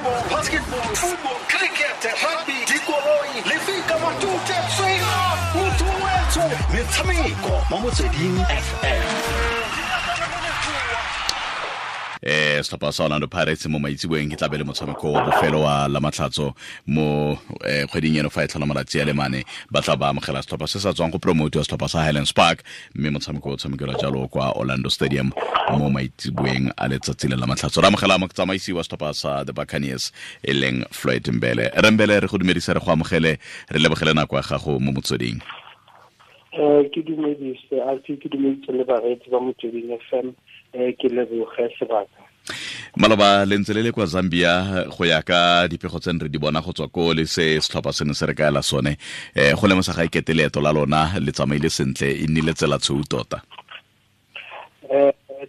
Volleyball, basketball, football, cricket, rugby, dikoloi, lefika, matute, tswela, motho wetsho, metshameko mo Motsweding FM. Setlhopha sa Orlando Pirates mo maitseboeng ke tlabe le motshameko wa bofelo wa la matlhatso mo kgweding eno fa e tlhola malatsi a le mane, ba tla ba amogela setlhopha se sa tswang go promote wa setlhopha sa Highlands Park, mme motshameko o tshamekelwa jalo kwa Orlando Stadium mo maitseboeng a letsatsi le la matlhatso. Re amogela motsamaisi wa setlhopha sa the Buccaneers e leng Floyd Mbele. Re Mbele, re go dumedisa, re go amogele, re lebogele nako ya gago mo Motsweding. Ke dumedise Alfi, ke dumedise le bareetsi ba Motsweding FM, ke leboge sebaka. Maloba le ntse le le kwa Zambia, go ya ka dipego tse re di bona go tswa ko le se setlhopha se ne se re kaela sone, go lemosa ga ikete leeto la lona le tsamaile sentle, e nnile tsela tshweu tota.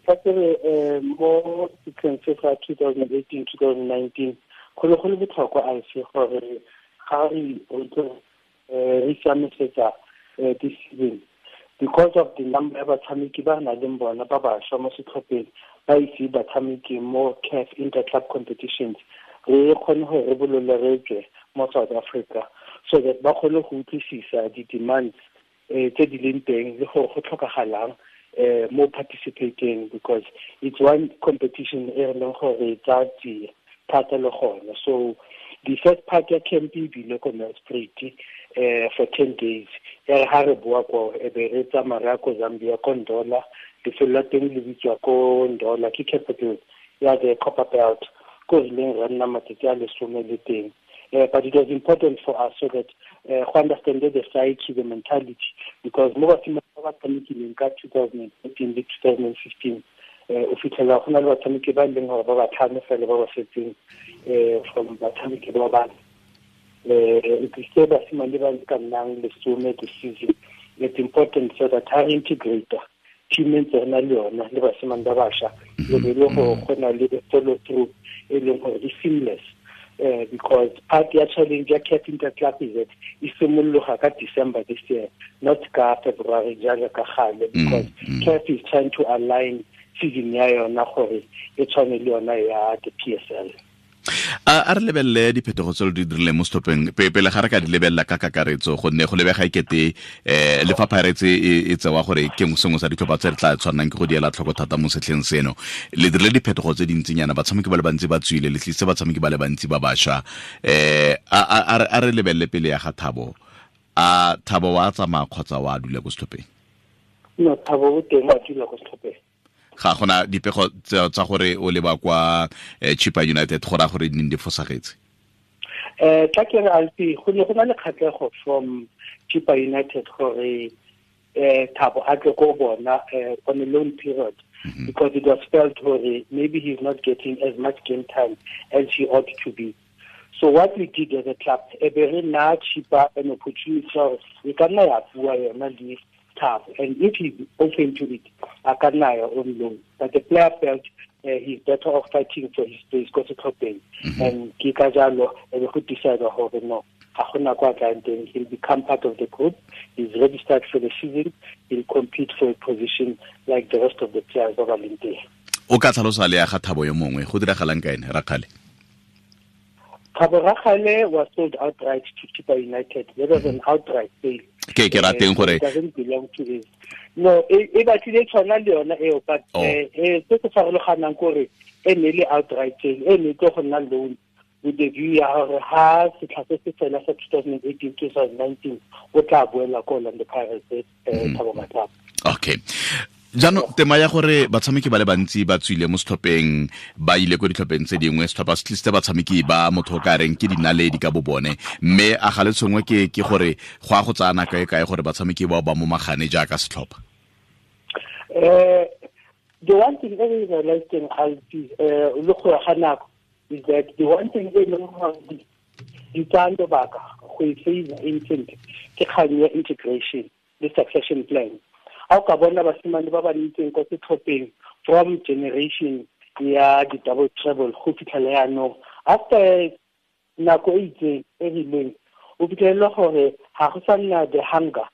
Tla kere mo setlheng se sa 2018 2019 go ne go le botlhokwa, Alfi, gore ga re re siamisetsa this season, because of the number ya batshameki ba re nang le bona ba bašwa mo setlhopheng ba ise batshameki mo CAF Interclub competitions, re kgone go re bolole re tswe mo South Africa so that ba kgone go utlwisisa di-demands tse di leng teng le gore go tlhokagalang mo participating, because it's one competition e re leng gore tsa tsie thata le gone. So the first part ya camp e bile ko Nelspruit for 10 days. Ya re ha re boa ko, e be re tsamaya re ya ko Zambia, ko Ndola. Lefelo la teng le bitswa ko Ndola, ke capital ya the Copper Belt, ko rileng re nna matsatsi a 10 le teng. But it was important for us so that go understand the psyche, the mentality, because mo basimane ba ba tshamekileng ka 2014 le 2015, o fitlhela go na le batshameki ba e leng gore ba batlhano fela ba ba setseng from batshameki ba bane. E tlise basimane ba ka nnang 10 this season. It's important so that ha re integrate team e ntse re na le yona le basimane ba bašwa, le be le gore go na le follow through e leng gore e seamless, because part ya challenge ya CAF Interclub is that e simologa ka December this year, not ka February jaaka ka gale, because CAF is trying to align season ya yona gore e tshwane le yona ya the PSL. A re lebelele diphetogo tse lo di dirileng mo setlhopheng pele ga re ka di lebelela ka kakaretso, gonne go lebega ekete le fa Pirates e tsewa gore ke sengwe sa ditlhopha tse re tla tshwannang ke go di ela tlhoko thata mo setlheng seno, le dirile diphetogo tse dintsinyana, batshameki ba le bantsi ba tswile, le tlisitse batshameki ba le bantsi ba bašwa. A re lebelele pele ya ga Thabo. A Thabo wa tsamaya kgotsa wa dula ko setlhopheng? No, Thabo o teng, wa dula ko setlhopheng. Ga gona dipego tsa gore o leba kwa Chippa United, go raya gore di di fosagetse? Tla ke re, Alfi, go ne go na le kgatlhego from Chippa United gore Thabo a tle ko bona on a loan period, because it was felt gore maybe he's not getting as much game time as he ought to be. So what we did as a club, e be re na Chippa an opportunity gore e ka nna ya bua yona le Thabo, and if he's open to it, a ka nna ya on loan. But the player felt he's better off fighting for his place ko setlhopheng, and ke ka jalo e be go decide gore no, ga gona kwa tlang teng, he'll become part of the group. He's registered for the season, he'll compete for a position like the rest of the players ba ba leng teng. O ka tlhalosa le ya ga Thabo yo mongwe, go diragalang ka ene Rakgale? Thabo Rakgale was sold outright to Chippa United. That was an outright sale. Ke rateng gore It doesn't belong to this. No, e batlile tshwana le yona eo, but se se farologanang kore e ne le outright sale, e ne tlo go nna loan with the view ya gore ha setlha se se fela sa 2018 2019 o tla boela ko Orlando Pirates, Thabo Matlaba. Okay, jaanong tema ya gore batshameki ba le bantsi ba tswile mo setlhopheng ba ile ko ditlhopheng tse dingwe, setlhopha se tlisitse batshameki ba motho o ka reng ke dinaledi ka bo bone, mme a ga le tshwengwe ke gore go a go tsaya nako e kae gore batshameki bao ba momagane jaaka setlhopha? The one thing e re realizing, Alfi, le go ya ga nako, is that the one thing e leng gore di tsaya lobaka go e favor infant ke kgang ya integration le succession plan. Ha o ka bona basimane ba ba ntseng ko setlhopheng from generation ya di-double treble go fitlhela yaanong, after nako e itseng e rileng, o fitlhelele gore ga go sa nna the hunger,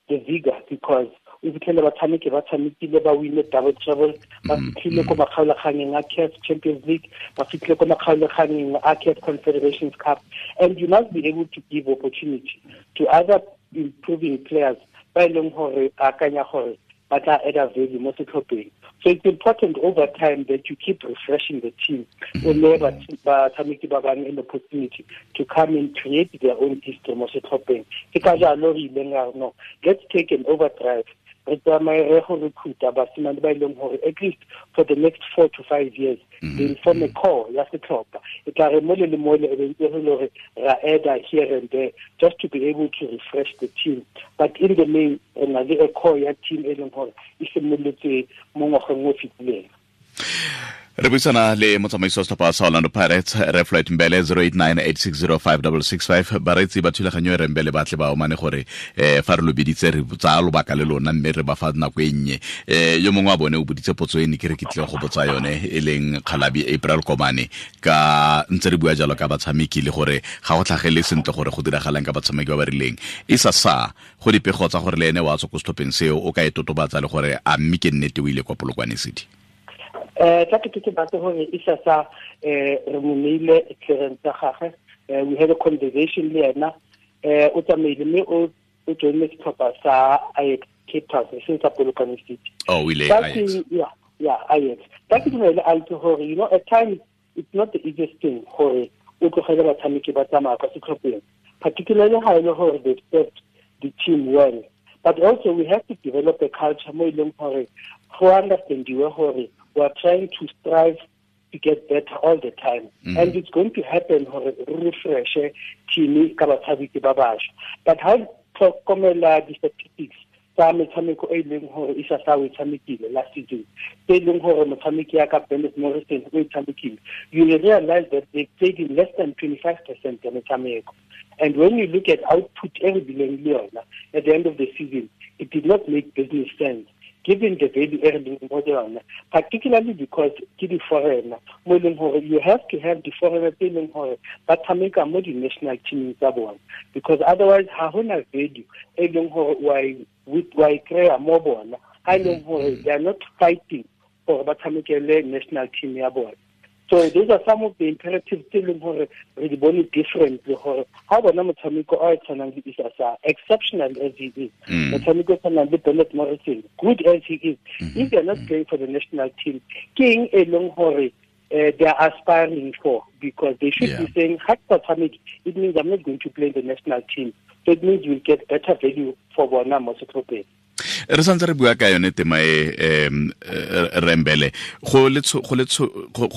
the vigor, because O fitlhele batshameki ba tshamekile, ba wine double treble, ba fitlhile ko makgaolakgangeng a CAF Champions League, ba fitlhile ko makgaolakgangeng a CAF Confederations Cup, and you must be able to give opportunity to other improving players ba e leng gore akanya gore ba tla add value mo setlhopheng. So it's important over time that you keep refreshing the team. O neye batshameki ba bangwe an opportunity to come and create their own history mo setlhopheng. Ke ka jalo re ileng ra no, let's take an overdrive, re tsamaye re go recruita basimane ba e leng gore at least for the next 4 to 5 years they form a core ya setlhopha. E tla re mole le mole e be ntse re le gore ra add here and there just to be able to refresh the team, but in the main re na le a core ya team e leng gore e simolotse mo ngwageng o fetileng. Re buisana le motsamaisi wa setlhopha sa Orlando Pirates, re Floyd Mbele, 0898605665. Bareetsi ba thulaganyo e re Mbele ba tle ba omane gore fa re lo biditse re tsaya lobaka le lona, mme re ba fa nako e nnye. Yo mongwe wa bone o boditse potso e ne ke re ke tlile go botsa yone, e leng Kgalabi April Komane, ka ntse re bua jalo ka batshameki le gore ga go tlhagele sentle gore go diragalang ka batshameki ba ba rileng. E sa go dipego tsa gore le ene wa tswa ko setlhopheng seo, o ka e totobatsa le gore a mme ke nnete o ile kwa Polokwane City? Tla ke ke batse gore Issa Sarr re mo neile clearance ya gagwe. We had a conversation le ena, o tsamaile mme o joinne setlhopha sa Ajax Cape Town, e seng sa Polokwane City. Oh, o ile Ajax. Yeah, Ajax. Tla ke dumele a itse gore, you know, at times it's not the easiest thing gore o tlogele batshameki ba tsamaya kwa setlhopheng, particularly ha e le gore they've served the team well. But also we have to develop a culture mo e leng gore go understandiwe gore we are trying to strive to get better all the time. And it's going to happen gore re refreshe team ka batshameki ba bašwa. But ha tlhokomela di-statistics tsa metshameko e leng gore Issa Sarr o e tshamekile last season, tse e leng gore motshameki ya ka Bennett Morrison o e tshamekile, you will realize that they played in less than 25% ya metshameko. And when you look at output e re bileng le yona at the end of the season, it did not make business sense given the value e re leng mo yona, particularly because ke di-foreigner, mo e leng gore you have to have di-foreigner tse e leng gore ba tshameka mo di-national teaming tsa bona, because otherwise ha hona value e leng gore wa e kry-a mo bona, ha e leng gore they are not fighting gore ba tshamekele national team ya bona. So those are some of the imperatives tse leng gore re di bone differently, gore ha bona motshameko o tshwanang le Issa Sarr, exceptional as he is, motshameko o tshwanang le Bennett Morrison, good as he is, if they are not playing for the national team, ke eng e leng gore they are aspiring for? Because they should be saying, ha ke sa tshameke, it means I'm not going to play the national team. So it means you'll get better value for bona mo setlhopheng. Re santse re bua ka yone tema e, Rembele, go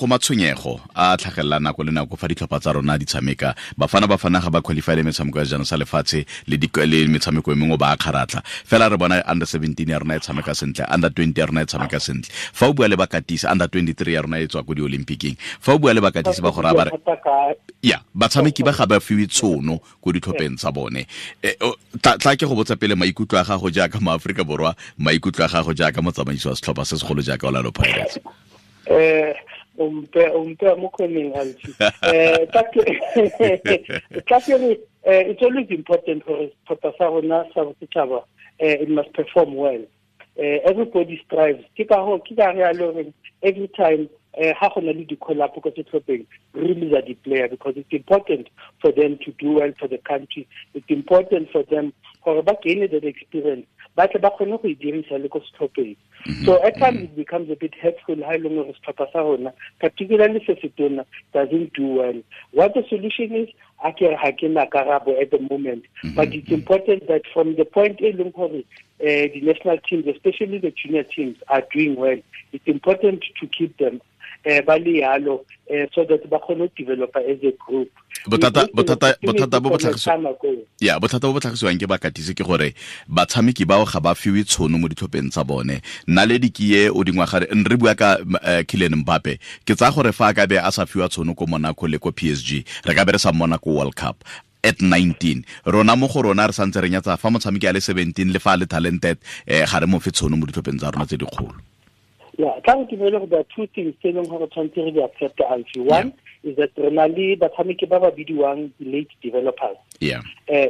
matshwenyego a tlhagelela nako le nako fa ditlhopha tsa rona di tshameka. Bafana ga ba qualify le metshameko ya jana sa lefatshe le metshameko e mengwe ba kgaratlha. Fela re bona under 17 ya rona e tshameka sentle, under 20 ya rona e tshameka sentle. Fa o bua le bakatisi, under 23 ya rona e tswa ko di-Olympiceng. Fa o bua le bakatisi ba gore ba re ya batshameki ba ga ba fiwe tshono ko ditlhopheng tsa bone. Tla ke go botsa pele maikutlo a gago jaaka mo-Afrika Borwa, maikutlo a gago jaaka motsamaisi wa setlhopha se segolo jaaka Orlando Pirates. O mpe mo khoneng, Alfi. Tla ke re, it's always important gore setlhopha sa rona sa bosetšhaba, it must perform well. Everybody strives. Ke ka ho, ke ka re a le horeng every time ha go na le di-call-up ko setlhopheng, re release di-player, because it's important for them to do well for the country. It's important for them gore ba gain that experience, ba tle ba kgone go e dirisa le ko setlhopheng. So at times it becomes a bit hurtful ha e leng gore setlhopha sa rona, particularly se setona, doesn't do well. What the solution is, a ke re ha ke na karabo at the moment, but it's important that from the point e leng gore the national teams, especially the junior teams, are doing well, it's important to keep them ba le yalo, so that ba kgone go develop as a group. Bothata bo bo tlhagisiwang ke bakatisi ke gore batshameki bao ga ba fiwe tshono mo ditlhopheng tsa bone. Naledi ke e o dingwaga re bua ka Kylian Mbappe, ke tsaya gore fa a ka be a sa fiwa tshono ko Monaco le ko PSG, re ka be re sa mmona ko World Cup at 19. Rona mo go rona re santse re nyatsa fa motshameki a le 17 le fa a le talented, ga re mo fe tshono mo ditlhopheng tsa rona tse dikgolo. Yeah, tla re dumele gore there are two things tse e leng gore tshwanetse re di accept, Alfie. One, is that re na le batshameki ba ba bidiwang late developers. Yeah.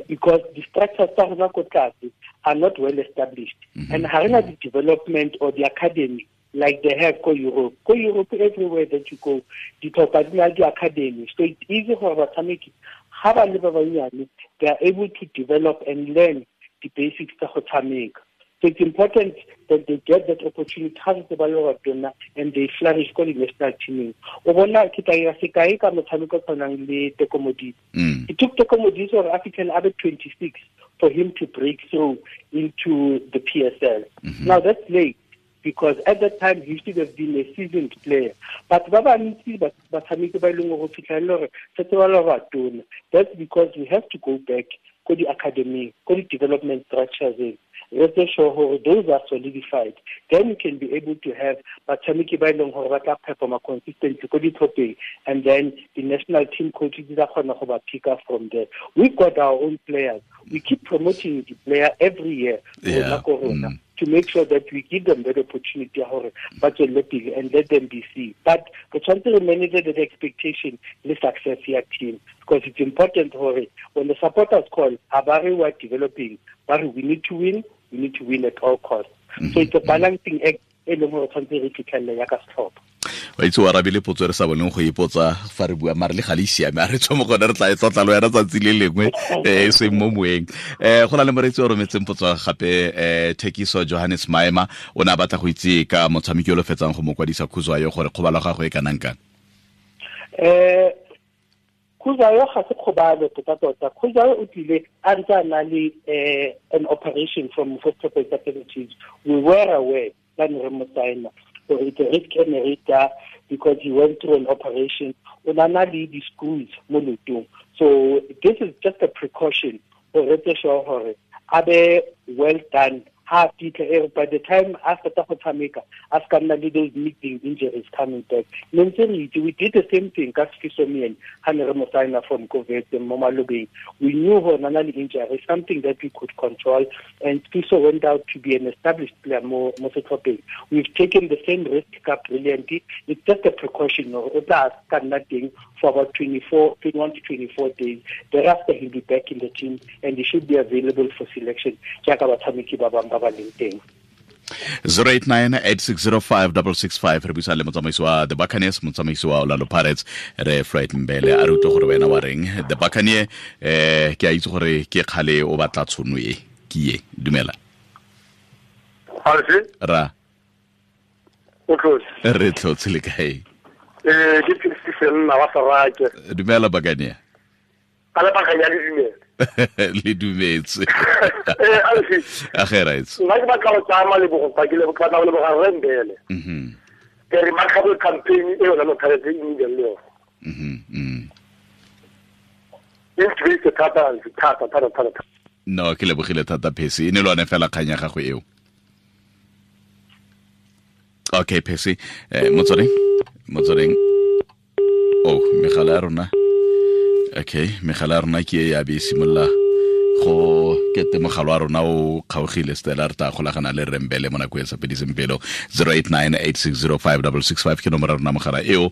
Because the structures tsa rona ko tlase are not well established. And ha rena the development or the academy like they have ko Europe. Ko Europe, everywhere that you go, ditlhopha di na le di-academy. So it's easy for batshameki, ha ba le ba bannyane, they are able to develop and learn the basics tsa go tshameka. So it's important that they get that opportunity ha ntse ba le batona and they flourish ko di-national teaming. O bona ke tla ira sekai ka motshameko o tshwanang le Teko Modise. It took Teko Modise gore a fitlhele a be 26 for him to break through into the PSL. Now that's late, because at that time he should have been a seasoned player. But ba bantsi batshameki ba e leng gore fitlhele gore setse ba le batona. That's because we have to go back ko di-academy, ko di-development structures. Let's sure gore those are solidified. Then you can be able to have batshameki ba e leng gore ba tla performa consistently ko ditlhopheng, and then the national team coaches ba kgona go ba pick up from there. We've got our own players. We keep promoting the player every year to make sure that we give them that opportunity gore ba tswelele pele and let them be seen. But we tshwanetse re manage the expectation le success ya team, because it's important gore when the supporters call, ha ba re we are developing, ba re we need to win, we need to win at all costs. So it's a balancing act e leng gore tshwanetse re fitlhelele ya ka setlhopha. Wa itse o arabile potso re sa boneng go ipotsa fa re bua, mare le ga le siame, a re tswa mo gone re tla e tlotla le wena tsatsi le lengwe, e seng mo moeng. Go na le moreetsi o rometseng potso gape, Thekiso Johannes Maema, o ne a batla go itse ka motshameki o lo fetsang go mo kwadisa Khuzwayo gore kgobalo ya gagwe e kanang kang. Khuzwayo ga se kgobalo tota-tota. Khuzwayo o tlile a ntse a na le an operation from first activities. We were aware that re mo signa. So it's a risk generator because he went through an operation. O na na le di-screws mo leotong. So this is just a precaution for re sure gore a be well done. Ha fitlha by the time a fetsa go tshameka, a ska nna le those niggling injuries coming back. Ne ntse re itse, we did the same thing ka Sifiso Myeni ha ne re mo signa from COVID mo malobeng. We knew gore na le injury, something that we could control, and Sifiso went out to be an established player mo setlhopheng. We've taken the same risk ka Brilliant. It's just a precaution. O tla ka nna teng for about 21 to 24 days. Thereafter, he'll be back in the team and he should be available for selection. Jaaka batshameki ba bang ba ba leng teng. 089-8605-665 re buisa le motsamaisi wa The Buccaneers, motsamaisi wa Orlando Pirates, re Floyd Mbele. A re utlwe gore wena wa reng. The Buccaneers, ke a itse gore ke kgale o batla tshono e, ke e. Dumela. Ra. O tlotse. Re tlotse le kae? Ke Philipsen wa Sarake. Dumela Buccaneers. A le Buccaneers le dumela. Le dumetse. A ge right. Nna ke batla go tsaya malebogo fa ke le batla go leboga Rre Mbele. Ke remarkable campaign e yona Pirates e nnileng le yone. E ntumeditse thata thata thata thata. No, ke lebogile thata Phesi. E ne le yone fela kgang ya gago eo. Okay, Phesi. Motsweding. Oh, megala ya rona. Okay, megala ya rona ke e ya be e simolola go kete mogala wa rona o kgaogile. Stella, re tla golagana le Rre Mbele mo nako e sa fediseng pelo. 089-8605-665 ke nomoro ya rona mogala eo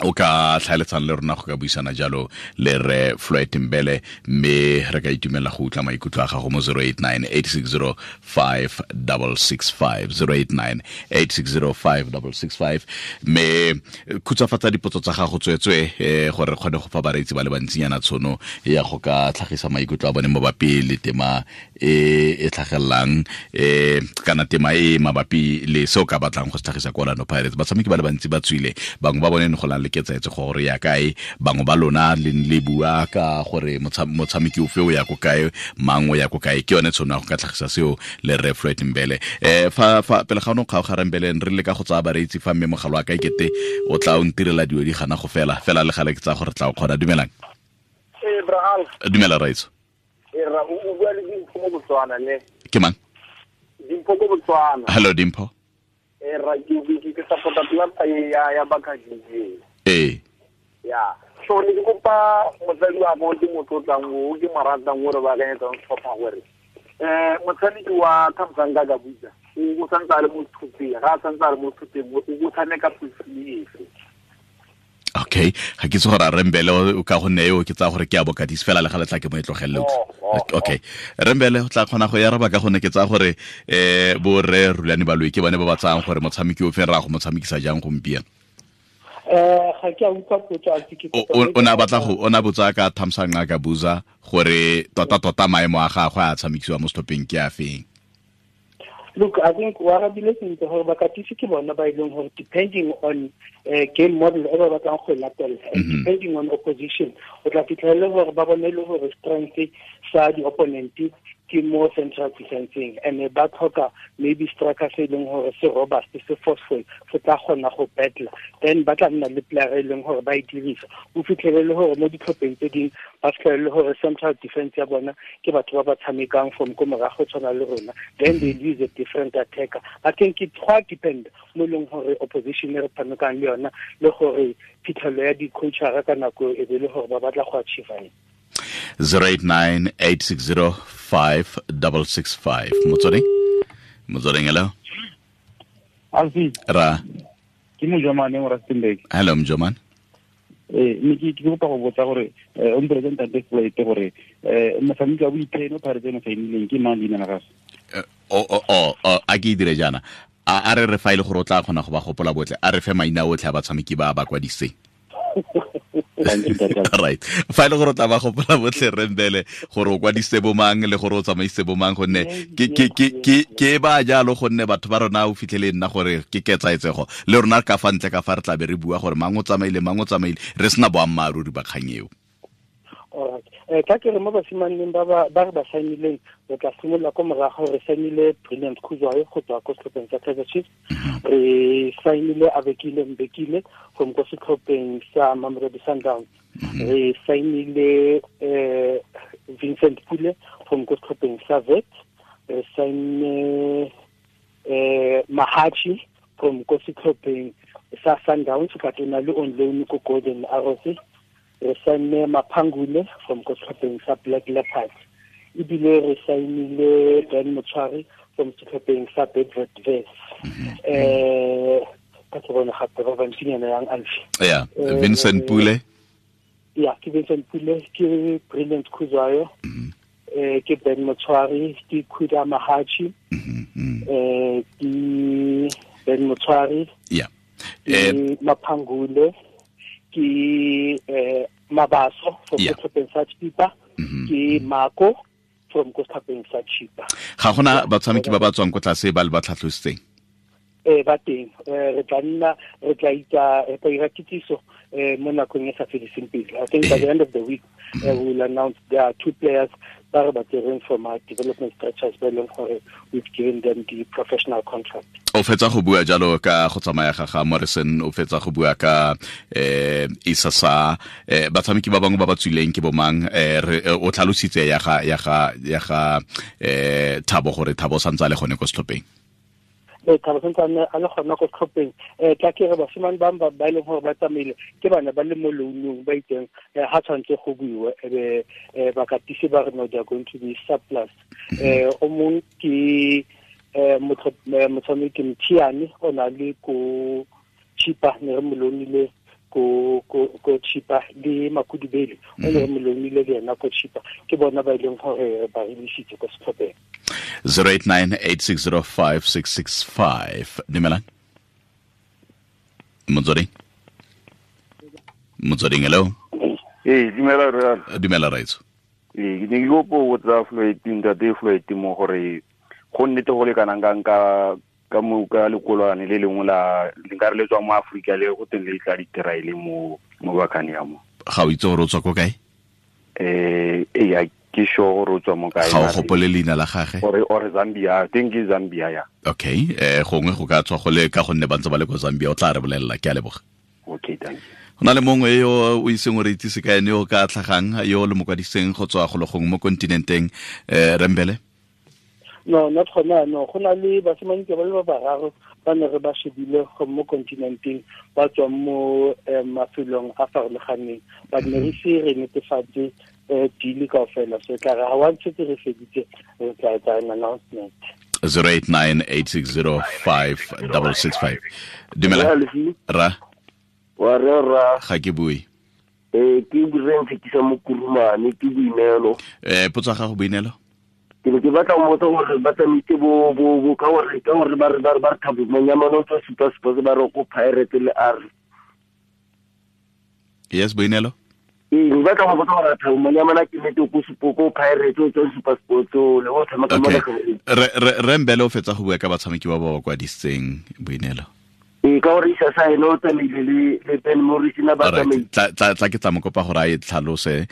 o ka tlhaeletsang le rona go ka buisana jalo le Rre Floyd Mbele, mme re ka itumela go utlwa maikutlo a gago mo 089-8605-665, 089-8605-665. Mme khutshwafatsa dipotso tsa gago tswetswe, gore re kgone go fa bareetsi ba le bantsinyana tshono ya go ka tlhagisa maikutlo a bone mabapi le tema e e tlhagelelang, kana tema e mabapi le seo ka batlang go se tlhagisa ko Orlando Pirates. Batshameki ba le bantsi ba tswile, bangwe ba bone ne go le ketsaetse gore ya kae, bangwe ba lona le le bua ka gore motshameki ofe o ya ko kae, mang o ya ko kae. Ke yone tshono ya go ka tlhagisa seo le Rre Floyd Mbele. Fa pele ga ono kgaoga Rre Mbele, re leka go tsaya bareetsi fa mme mogala wa ka ekete o tla o ntirela dilo di gana go fela fela le gale ke tsaya gore tla o kgona. Dumelang. Dumela raitso. Ra o bua le Dimpho mo Botswana ne. Ke mang? Dimpho ko Botswana. Hello Dimpho. Ra ke support club ya Buccaneers. Ya. So ne ke kopa motsadi wa mo ke motho o tlang o ke mo ratang o re ba akanyetsang setlhopha gore motshameki wa Thamsanqa Gabuza o santse a le mo thupeng, ga a santse a le mo thupeng o tshameka position efe? Okay, ga ke itse gore a Rembele o ka gonne eo ke tsaya gore ke a bokatisi fela le ga letla ke mo e tlogelele. Okay, Rembele o tla kgona go e araba ka gonne ke tsaya gore bo rre Rulani Baloyi ke bone ba ba tsayang gore motshameki o feng ra go mo tshamekisa jang gompieno. Ga ke a utlwa potso, a ke O ne a batla go o ne a botsa ka Thamsanqa Gabuza gore tota maemo a gagwe a tshamekisiwa mo setlhopheng ke a feng. Look, I think wa arabile sentle gore bakatisi ke bona ba e leng gore depending on game model e ba batlang go e latela, depending on opposition, o tla fitlhela gore ba bone le gore strength sa di-opponent ke mo central defenseng, and ba tlhoka maybe striker se e leng gore se robust, se forceful, se tla kgona go battle, then ba tla nna le player e leng gore ba e dirisa. O fitlhele le gore mo ditlhopheng tse dingwe ba fitlhele le gore central defense ya bona ke batho ba ba tshamekang from ko morago tshwana le rona, then they use a different attacker. I think it go depend mo leng gore opposition e re tshamekang le yona le gore phitlhelo ya di-coachara ka nako e be le gore ba batla go achieve eng. 089-860-5665. Motsweding, hello. Alfi. Ra. Ke Mojomane mo Rustenburg. Hello Mojomane. Ne ke kopa go botsa gore o mpolelela ntate Floyd gore motshameki wa boitheno Pirates eno saenileng ke mang leina la gagwe? A ke dire jaana. A re re fa ile gore o tla kgona go ba gopola botlhe, a re fe maina otlhe a batshameki ba ba kwadiseng. Right. Fa ile gore o tla ba gopola botlhe Rembele gore o kwadise bomang le gore o tsamaise bomang, gonne ke ba jalo, gonne batho ba rona o fitlhele nna gore ke ketsaetsego le rona ka fa ntle ka fa re tla be re bua gore mang o tsamaile mang o tsamaile, re sena boammaaruri ba kgang eo. Alright. Ka ke re mo basimaneng ba re ba saenileng, re tla simolola ko morago. Re saenile Brilliant Khuzwayo go tswa ko setlhopheng sa Kaizer Chiefs, re saenile Abekile Mbekile from ko setlhopheng sa Mamelodi Sundowns, re saenile Vincent Pule from ko setlhopheng sa Wits, re saenne Mahachi from ko setlhopheng sa Sundowns, but o na le on loan ko Golden Arrows, re saenne Maphangule from ko setlhopheng sa Black Leopards, ebile re saenile Ben Motshwari from setlhopheng sa Bedford Vets. Ka ke bona gape ba bantsinyana yang Alfi. Yeah, Vincent Pule. Yeah, ke Vincent Pule, ke Brilliant Khuzwayo, ke Ben Motshwari, ke Khuda Mahachi, ke Ben Motshwari, yeah, ke Maphangule, ke Mabaso from setlhopheng sa Chipa, ke Mako from ko setlhopheng sa Chipa. Ga gona batshameki ba ba tswang ko tlase ba le ba tlhatlositseng? Ba teng. Re tla nna re tla itsa re tla ira kitsiso mo nakong e sa fediseng pelo. I think by the end of the week we will announce there are two players ba re ba tsereng from our development structures ba leng gore we've given them the professional contract. O fetsa go bua jalo ka go tsamaya ga ga Morrison, o fetsa go bua ka Isasa, batshameki ba bangwe ba ba tswileng ke bomang? O tlhalositse ya ga Thabo gore Thabo santse a le gone ko setlhopheng. Thabo santse a le gona ko setlhopheng. Tla ke re basimane ba ba e leng gore ba tsamaile ke bana ba le mo loanong ba itseng, ha tshwanetse go buiwe ebe bakatisi ba re no they are going to be surplus. O mongwe ke motshameki Mthiane o na le ko Chipa, ne re mo loanile ko Chipa, le Makudubele o ne re mo loanile le ena ko Chipa. Ke bona ba e leng gore ba releasitse ko setlhopheng. 089-860-5665. Dumelang. Motsweding, hello. Dumela re. Dumela raitso. Ke ne ke kopo go tsa Floyd, ntate Floyd mo gore go nnete go le kanang ka ka mo ka lekolwane le lengwe la le nka re le tswa mo Afrika le go teng le tla diteraile mo bakane ya mo. Ga o itse gore o tswa ko kae? Ya ke sure gore o tswa mo kae. Ga o gopole leina la gagwe? Or Zambia, I think ke Zambia ya. Okay, gongwe go ka tswa go le ka gonne ba ntse ba le ko Zambia, o tla re bolelela. Ke a leboga. Okay, thank you. Go na le mongwe yo o iseng o re itsise ka ene yo ka tlhagang, yo le mokwadiseng go tswa go le gongwe mo kontinenteng, Rembele? No, not gona no. Go na le basimane ke ba le ba bararo ba ne re ba shebile go mo kontinenteng, ba tswa mo mafelong a farologaneng, but ne re se re netefatse deal kaofela. So tla re ha wa ntse re feditse re tla etsa an announcement. 089-860-5665. Dumela. Ra. Wa re ra. Ga ke bue. Ke bureng fetisa mo Kurumane ke Boineelo. Potso ya gago Boineelo? Ke ne ke batla go botsa gore ba tsamaitse bo ka gore ba re Thabo Monyamane o tswa Super Sports ba re ko Pirates le R. Yes, Boineelo. Ke batla go botsa gore Thabo Monyamane ke nete ko ko Pirates o tswa Super Sports le o tshameka mo nageng. Re Mbele o fetsa go bua ka batshameki ba ba kwadisitseng Boineelo. Ka gore isa sa ene o tsamaile le Ben Morris na ba tsamaile. Tla ke tla mo kopa gore a e tlhalose.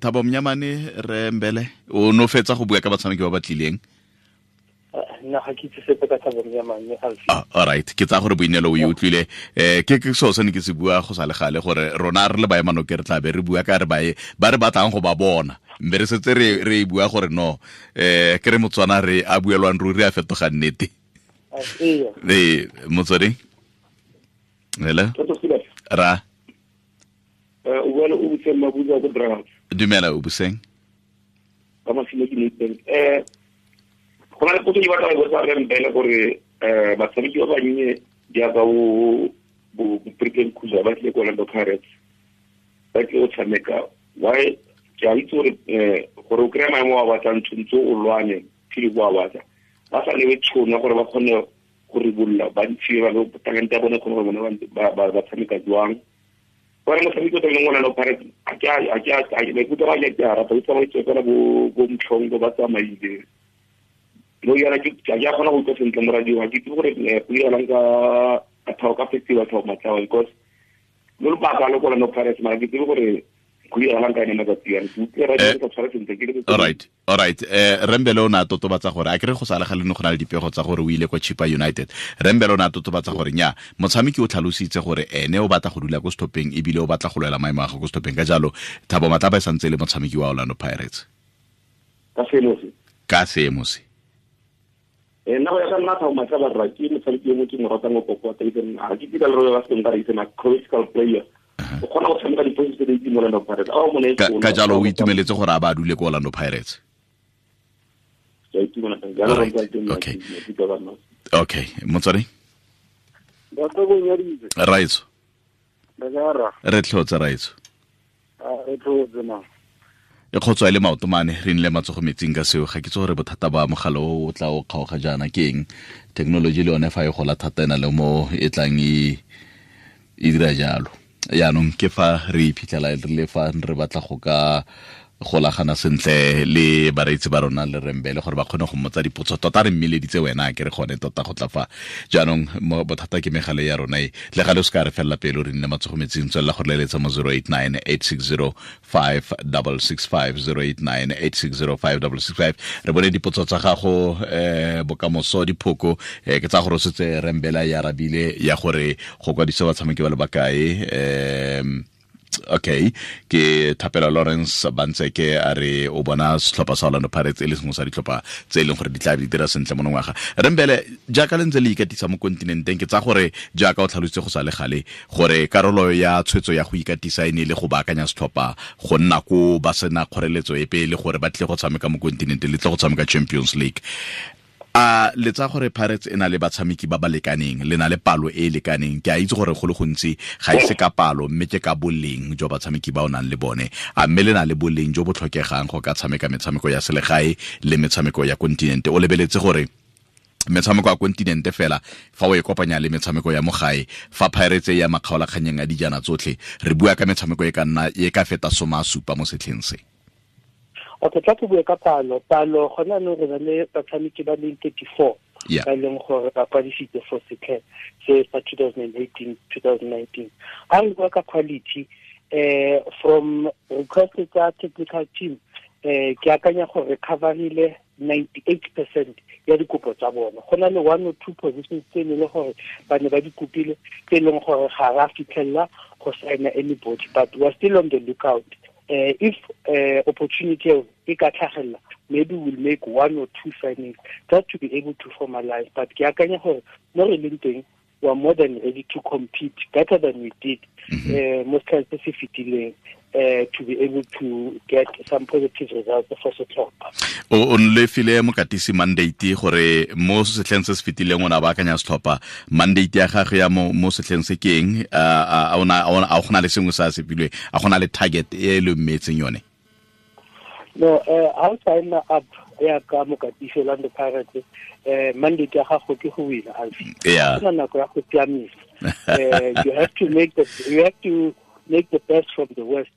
Thabo Monyamane re Mbele o no fetsa go bua ka batshameki ba ba tlileng. Nna ga ke itse sepe ka Thabo Monyamane. All right, ke tsa gore Boineelo o e utlwile. Ke seo se ne ke se bua go sa le gale gore rona re le baemanoke re tla be re bua ka re ba re batlang go ba bona. Mme re setse re e bua gore no ke re Motswana re a buelwang ruri a fetoga nnete. Motswedi? Hello? Ra? O bua le Obuseng Mabuza ko Dragons. Dumela Obuseng. Ka masimo ke Nathan. Go na le potso ke batla go botsa re Mbele gore batshameki ba bannye jaaka bo Britain Khuza ba tlile ko Orlando Pirates ba tlile go tshameka. Why ke a itse gore gore o kry-a maemo a batlang tshwanetse o lwane phele bo a batla. Ba sa newe tšhono gore ba kgone go ribolola ba ntshiwe ba talente ya bone kgone gore bone ba tshameka jwang. Gore motshameki o tlamehileng Orlando Pirates maikutlo a ke a rata o tsamaitse fela bo Mtlhongo ba tsamaile. No yana ke a kgona go utlwa sentle mo radio ga ke itse gore go diragalang ka ka festival Thabo Matlaba because lo lobaka lo ko Orlando Pirates mara ke tsebe gore go diragalang ka ene matsatsi ano. Ke utlwe radio ke sa tshware sentle ke le. All right. Rembele o ne a totobatsa gore a kere go sa le gale ne go na le dipego tsa gore o ile kwa Chippa United. Rembele o ne a totobatsa gore nya motshameki o tlhalositse gore ene o batla go dula ko stopping ebile o batla go lwela maemo a gagwe ko stopping. Ka jalo Thabo Matlaba e santse e le motshameki wa Orlando Pirates. Ka seemo se. Nna go ya ka nna Thabo Matlaba rra ke motshameki yo mo ke mo ratang go kokota even ga ke dira le re ba seng ba re itse na critical player. O kgona go tshameka diposition tse di mo Orlando Pirates. Ka jalo o itumeletse gore a ba dule ko Orlando Pirates. Okay, motswadi. Raitso. Re tlhotse Raitso. Re tlhotse ma. E kgotswa le maoto mane re nle matsogo metsing ka seo ga ke tse gore bothata ba mogala o tla o kgaoga jaana ke eng. Technology le yone fa e gola thata ena le mo e tlang e dira jalo. Yaanong ke fa re iphitlhela re le fa re batla go ka golagana sentle le bareetsi ba rona le Rembele gore ba kgone go mmotsa dipotso tota re mmeleditse wena ke re gone tota go tla fa. Jaanong bothata ke megale ya rona e le gale o se ka re felela pelo re nne matsogo metsing tswelela go leletsa mo 089 860 5665 089 860 5665. Re bone dipotso tsa gago bokamoso diphoko ke tsa gore o setse Rembele ya arabile ya gore go kwadisa batshameki ba le bakae. Okay, ke Thapelo Lawrence Bantseke a re o bona setlhopha sa Orlando Pirates e le sengwe sa ditlhopha tse e leng gore di tla di dira sentle monongwaga. Rembele jaaka le ntse le ikatisa mo kontinenteng ke tsa gore jaaka o tlhalositse go sa le gale gore karolo ya tshwetso ya go ikatisa e ne le go baakanya setlhopha go nna ko ba sena kgoreletso epe le gore ba tle go tshameka mo kontinenteng le tle go tshameka Champions League. A le tsa gore Pirates e na le batshameki ba ba lekaneng le na le palo e e lekaneng ke a itse gore go le gontsi ga e se ka palo mme ke ka boleng jo batshameki ba o nang le bone a mme le na le boleng jo bo tlhokegang go ka tshameka metshameko ya selegae le metshameko ya kontinente. O lebeletse gore metshameko ya kontinente fela fa o e kopanya le metshameko ya mo gae fa Pirates ya makgaolakganyeng a dijana tsotlhe re bua ka metshameko e ka nna e ka feta 70 mo setlheng se. Okay, tla ke bue ka palo. Palo gona no re na le batshameki ba leng 34 ba leng gore ba kwadisitse for setlha se sa 2018-2019. Ha re bua ka quality from request tsa technical team ke akanya gore coverile 98% ya dikopo tsa bona. Go na le 1 or 2 positions tse e leng gore ba ne ba di kopile tse e leng gore ga ra fitlhella go signa anybody, but we are still on the lookout. If opportunity e ka tlhagelela, maybe we'll make 1 or 2 signings just to be able to formalize. But ke akanya gore mo re leng teng we are more than ready to compete better than we did mo setlheng se se fetileng, to be able to get some positive results for setlhopha. O nlefile mokatisi mandate gore mo setlheng se se fetileng o ne a baakanya setlhopha. Mandate ya gagwe ya mo setlheng se ke eng? A go na le sengwe se a se filweng? A go na le target e le mmetseng yone? No, ha o sign up ya ka mokatisi Orlando Pirates, mandate ya gago ke go wina, Alfie. Go na nako ya go siamisa. You have to make the best from the worst.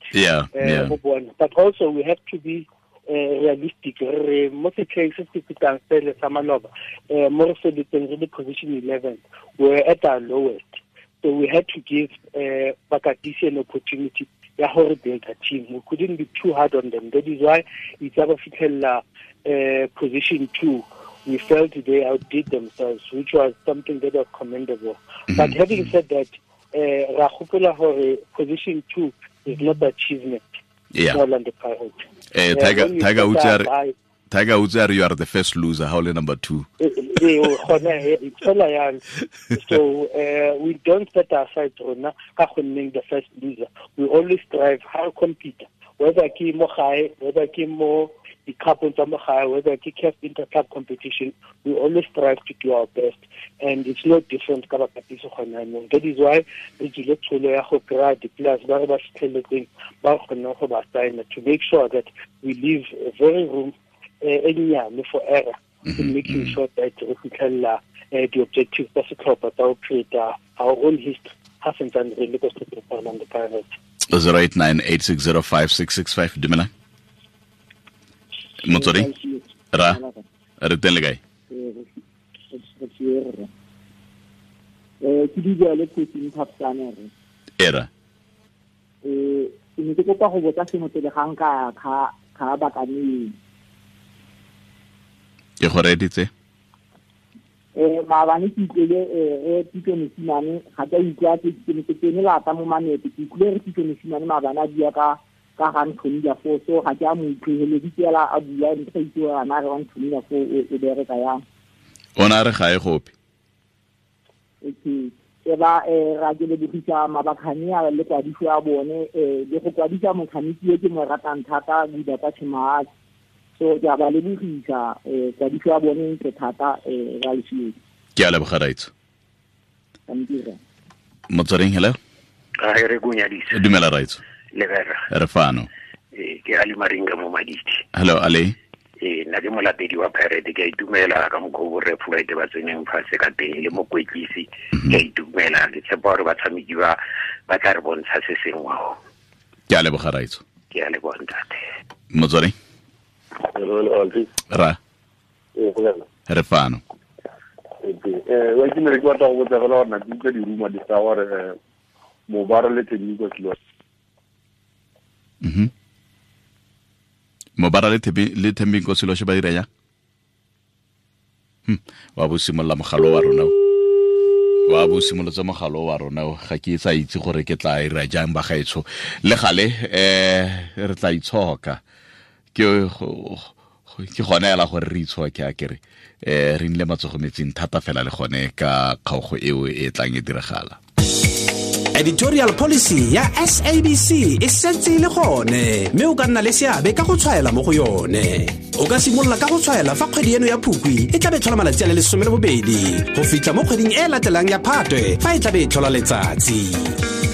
But also we have to be realistic. Re mo setlheng se se fetang sele sa maloba, mo re feletseng re le position 11, we were at our lowest. So we had to give Bakatisi an opportunity ya gore build a team. We couldn't be too hard on them. That is why it's ba fitlhella position 2. We felt they outdid themselves, which was something that was commendable. But having said that, ra gopola gore position 2 is not achievement. Orlando Pirates. Tiger Woods, you are the first loser. How number 2? So we don't set aside rona ka go nneng the first loser. We always strive how compete, whether ke mo gae, whether ke mo di-cup tsa mo gae, whether ke CAF inter-club competition, we always strive to do our best, and it's no different ka bakatisi gone jaanong. That is why re tswile tsholo ya go kry-a di-players ba re ba fitlheletseng ba kgoneng go ba signa, to make sure that we leave a very room e nnyane for error in making sure that re fitlhelela di-objectives tsa setlhopha tsa go create our own history ha santsane re le ko setlhopheng sa Orlando Pirates. 0898605665. Dumela Motswedi, ra re teng le kae? Ke di le coaching Phapsane re. Era. Ke ne ke kopa go botsa sengwe pele ga nka kha bakane. Ke go reditse. Maabane ke utlwile re Pitso Mosimane, ga ke a utlwa ke ne ke tsene lata mo mamete, ke utlwile re Pitso Mosimane maabane a bua ka ga Anthony Lafo, so ga ke a mo utlweleditse fela a bua, ntse sa itse gore ana re Anthony Lafo o bereka yang. O na re ga e gope. Okay. E ba ra ke lebogisa mabakhane a le kwadiso ya bone, le go kwadisa motshameki e ke mo ratang thata Buda kwa Tshimaatsi. So ke a ba lebogisa kwadiso ya bone ntle thata ra lesiedi. Ke a leboga raitso. Motsweding, hello. A re go nyadisa. Dumela raitso. Le vera. Re fano. Ke Ali Maringa mo Maditi. Hello Ali. Nna ke molatedi wa Pirate, ke a itumela ka mokgwa o borre Floyd ba tseneng fatshe ka teng le mokwetlisi. Ke a itumela, ke tshepa gore batshameki ba tla re bontsha se sengwe. Ke a leboga raitso. Ke a leboga ntate. Motsweding. Ra. Re fano. Wa ke ne ke batla go botsa fela gore na ke utlwa di-rumor di tsa gore Mobara le Thembinkosi Loshe. Mobara le Thembinkosi Loshe ba dira jang? Wa bo simolola mogalo wa rona. Wa bo simolotse mogalo wa rona, ga ke sa itse gore ke tla ira jang ba gaetsho. Le gale re tla itshoka. Ke gone ela gore re itshoke a kere re nile matsogo metsing thata fela le gone ka kgaogo eo e tlang e diragala. Editorial policy ya SABC e setse e le gone, mme o ka nna le seabe ka go tshwaela mo go yone. O ka simolola ka go tshwaela fa kgwedi eno ya Phukwi e tlabe e tlhola malatsi a le 12 go fitlha mo kgweding e latelang ya Phatwe fa e tlabe e tlhola letsatsi.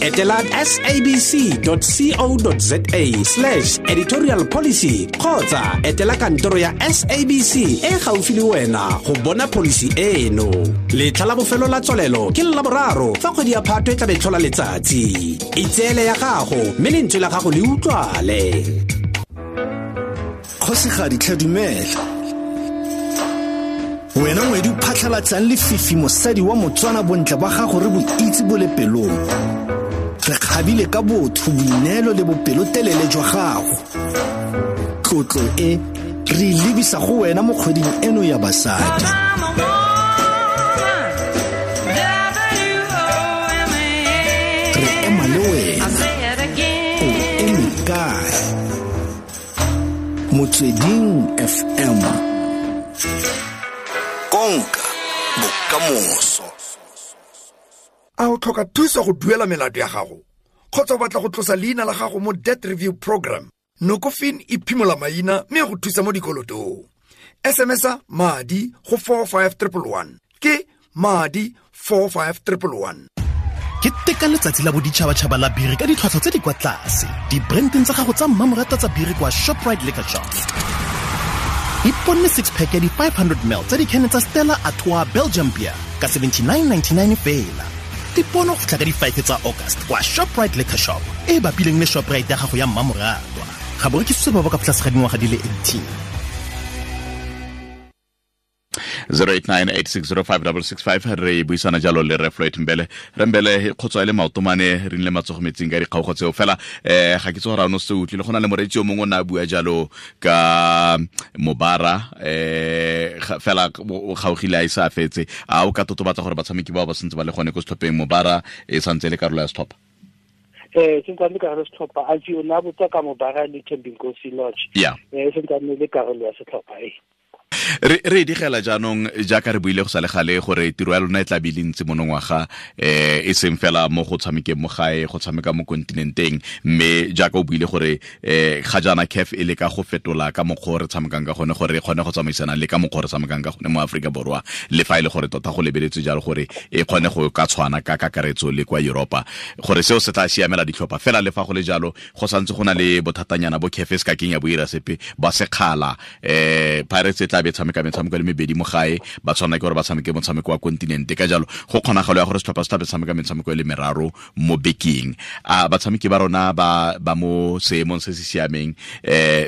Etela sabc.co.za/editorial policy kgotsa etela kantoro ya SABC e gaufi le wena go bona policy eno. Letlha la bofelo la tswalelo ke la boraro fa kgwedi ya Phatwe e tlabe e tlhola letsatsi. Itseele ya gago mme lentswe la gago le utlwale. Kgosigadi tlhe dumela. Wena ngwedi o phatlhalatsang lefifi mosadi wa Motswana, bontle ba gago re bo itse bo le pelong. Re kgabile ka botho, boineelo le bopelotelele jwa gago. Tlotlo e re e lebisa go wena mo kgweding eno ya basadi. Re ema le wena. O eme kae? Motsweding FM. Konka bokamoso. A o tlhoka thuso go duela melato ya gago kgotsa o batla go tlosa leina la gago mo debt review program? Nokofin e phimola maina mme go thusa mo dikolotong. SMS-a madi go 45111, ke madi 45111. Ke teka letsatsi la boditšhabatšhaba la biri ka ditlhwatlhwa tse di kwa tlase dibrandeng tsa gago tsa mmamoratwa tsa biri kwa Shoprite Liquor Shop. Iponne six pack ya di-500 ml tsa dikhene tsa Stella Artois Belgium beer ka 79.99 fela. Dipono go fitlha ka di-5 tsa August kwa Shoprite Liquor Shop e e bapileng le Shoprite ya gago ya mmamoratwa. Ga bo rekisitswe ba ba ka tlase ga dingwaga di le 18. 0898605665. Re buisana jalo le re Floyd Mbele. Re Mbele, kgotsa e le maotomane re nle matsogo metsing ka dikgaogo tseo fela. Ga ke tse gore a no se utlwile, go na le moreetsi o mongwe o ne a bua jalo ka Mobara, fela o kgaogile a ise a fetse. A o ka totobatsa gore batshameki bao ba santse ba le gone ko setlhopheng, Mobara e santse e le karolo ya setlhopha? Sentse le karolo ya setlhopha. A o ne a botsa ka Mobara le Thembinkosi Lodge? Yeah. Sentse le karolo ya setlhopha e. Re digela jaanong, jaaka re buile go sa le gale, gore tiro ya lona e tla be le ntse monongwaga, e seng fela mo go tshamekeng mo gae, go tshameka mo kontinenteng, mme jaaka o buile gore ga jaana CAF e leka go fetola ka mokgwa o re tshamekang ka gone, gore re kgone go tsamaisana le ka mokgwa o re tshamekang ka gone mo Aforika Borwa, le fa e le gore tota go lebeletswe jalo gore e kgone go ka tshwana ka kakaretso le kwa Europa, gore seo se tla siamela ditlhopha fela. Le fa go le jalo, go santse go na le bothatanyana bo CAF se ka keng ya bo ira sepe ba sekgala. Pirates e tla be tshameka metshameko le mebedi mo gae, ba tshwana ke gore ba tshameke motshameko wa kontinente. Ka jalo go kgonagalo ya gore setlhopha se tla be tshameka metshameko e le meraro mo bekeng. A batshameki ba rona ba mo seemong se se siameng,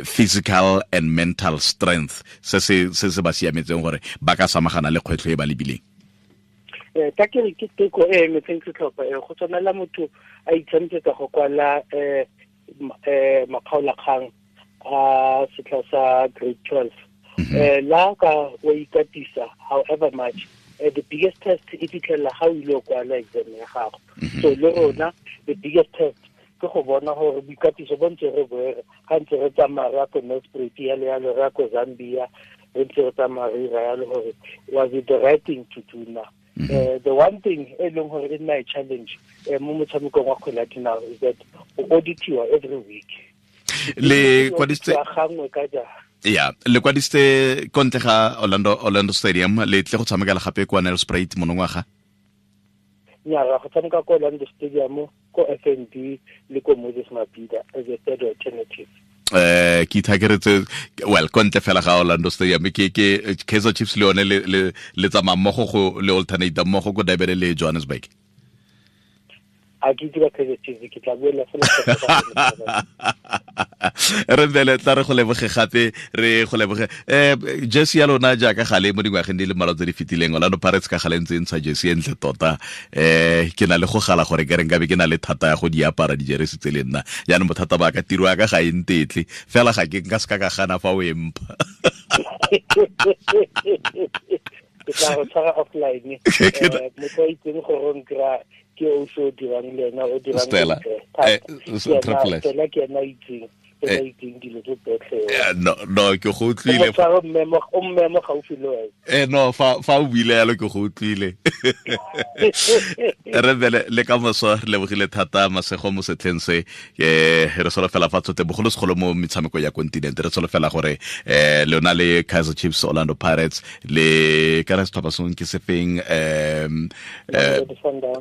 physical and mental strength se se ba siametseng gore ba ka samagana le kgwetlho e ba lebileng? Ka ke re ke teko e emetseng setlhopha e go tshwanela motho a itshameketsa go kwala makgaolakgang a setlha sa grade 12. La ka wa ikatisa however much, the biggest test e fitlhela ga o ile kwala exam ya gago. So le rona the biggest test ke go bona gore boikatiso bo ntse re boere ga ntse re tsamaya re ya ko Nelspruit, yalo yalo, re ya ko Zambia, re ntse re tsamaya re ira yalo, gore was it the right thing to do now? The one thing e leng gore e nna e challenge mo motshamekong wa kgwele ya dinao is that o auditiwa every week. Le kwadisitse gangwe ka jara. Ya, le kwadisitse kontle ga Orlando Stadium, le tle go tshamekela gape kwa Nelspruit monongwaga? Nya, go tshameka ko Orlando Stadium, ko FNB le ko Moses Mabhida as a third alternative. Ke ithakeretse, well, kontle fela ga Orlando Stadium, ke Kaizer Chiefs le yone le tsamaya mmogo go le alternate mmogo ko Durban le Johannesburg. A ke itse ba Kaizer Chiefs, ke tla buela fela. Re bele tla re go leboge gape, re go leboge. Jersey ya lona jaaka gale mo dingwageng di le mmalwa tse di fetileng, Orlando Pirates ka gale ntse e ntsha jersey e ntle tota. Ke na le go gala gore ke re nkabe ke na le thata ya go di apara dijeresi tse le nna. Jaanong bothata ba ka, tiro ya ka ga e ntetle fela, ga ke nka se ka gana fa o e mpha. Ke tla go tshwara offline. Motho a itseng gore o nkry-a ke o se o dirang le ena, o dirang Stella. Triple S. Stella ke ena itseng, ena itseng dilo tse tsotlhe. No, ke go utlwile. O tshwara o mmemo gaufi le wena. No, fa o buile yalo ke go utlwile. Re bele le ka moso, re lebogile thata, masego mo setlheng se. Re solofela fa tsote bogolo segolo mo metshameko ya kontinente, re solofela gore lona le Kaizer Chiefs, Orlando Pirates le ka re setlhopha sengwe ke sefeng,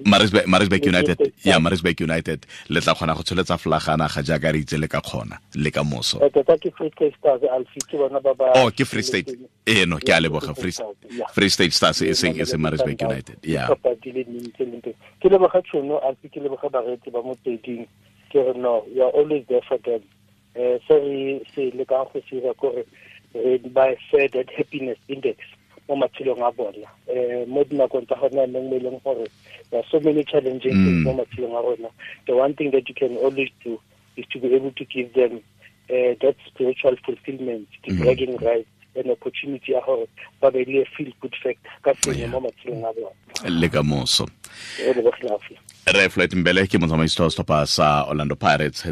Maritzburg United, ya Maritzburg United, le tla kgona go tsholetsa flagana ga jaaka re itse le ka kgona le ka moso. Tota ke Free State Stars, Alfie, ke bona ba ba Oh, ke Free State. No, ke a leboga. Free State Stars e seng Maritzburg United. Yeah. Ke leboga tšhono, Alfie, ke leboga bareetsi ba Motsweding. Ke re no, we are always there for them. Se re se lekang go se dira kore re ba fe that happiness index mo matshelong a bona. Mo dinakong tsa gone jaanong mo e leng gore there are so many challenging things mo matshelong a rona. The one thing that you can always do is to be able to give them that spiritual fulfillment, the bragging rights, an opportunity ya gore ba be le feel good factor ka sengwe mo matshelong a bona. Le ka moso. Re Floyd Mbele ke motsamaisi wa setlhopha sa Orlando Pirates.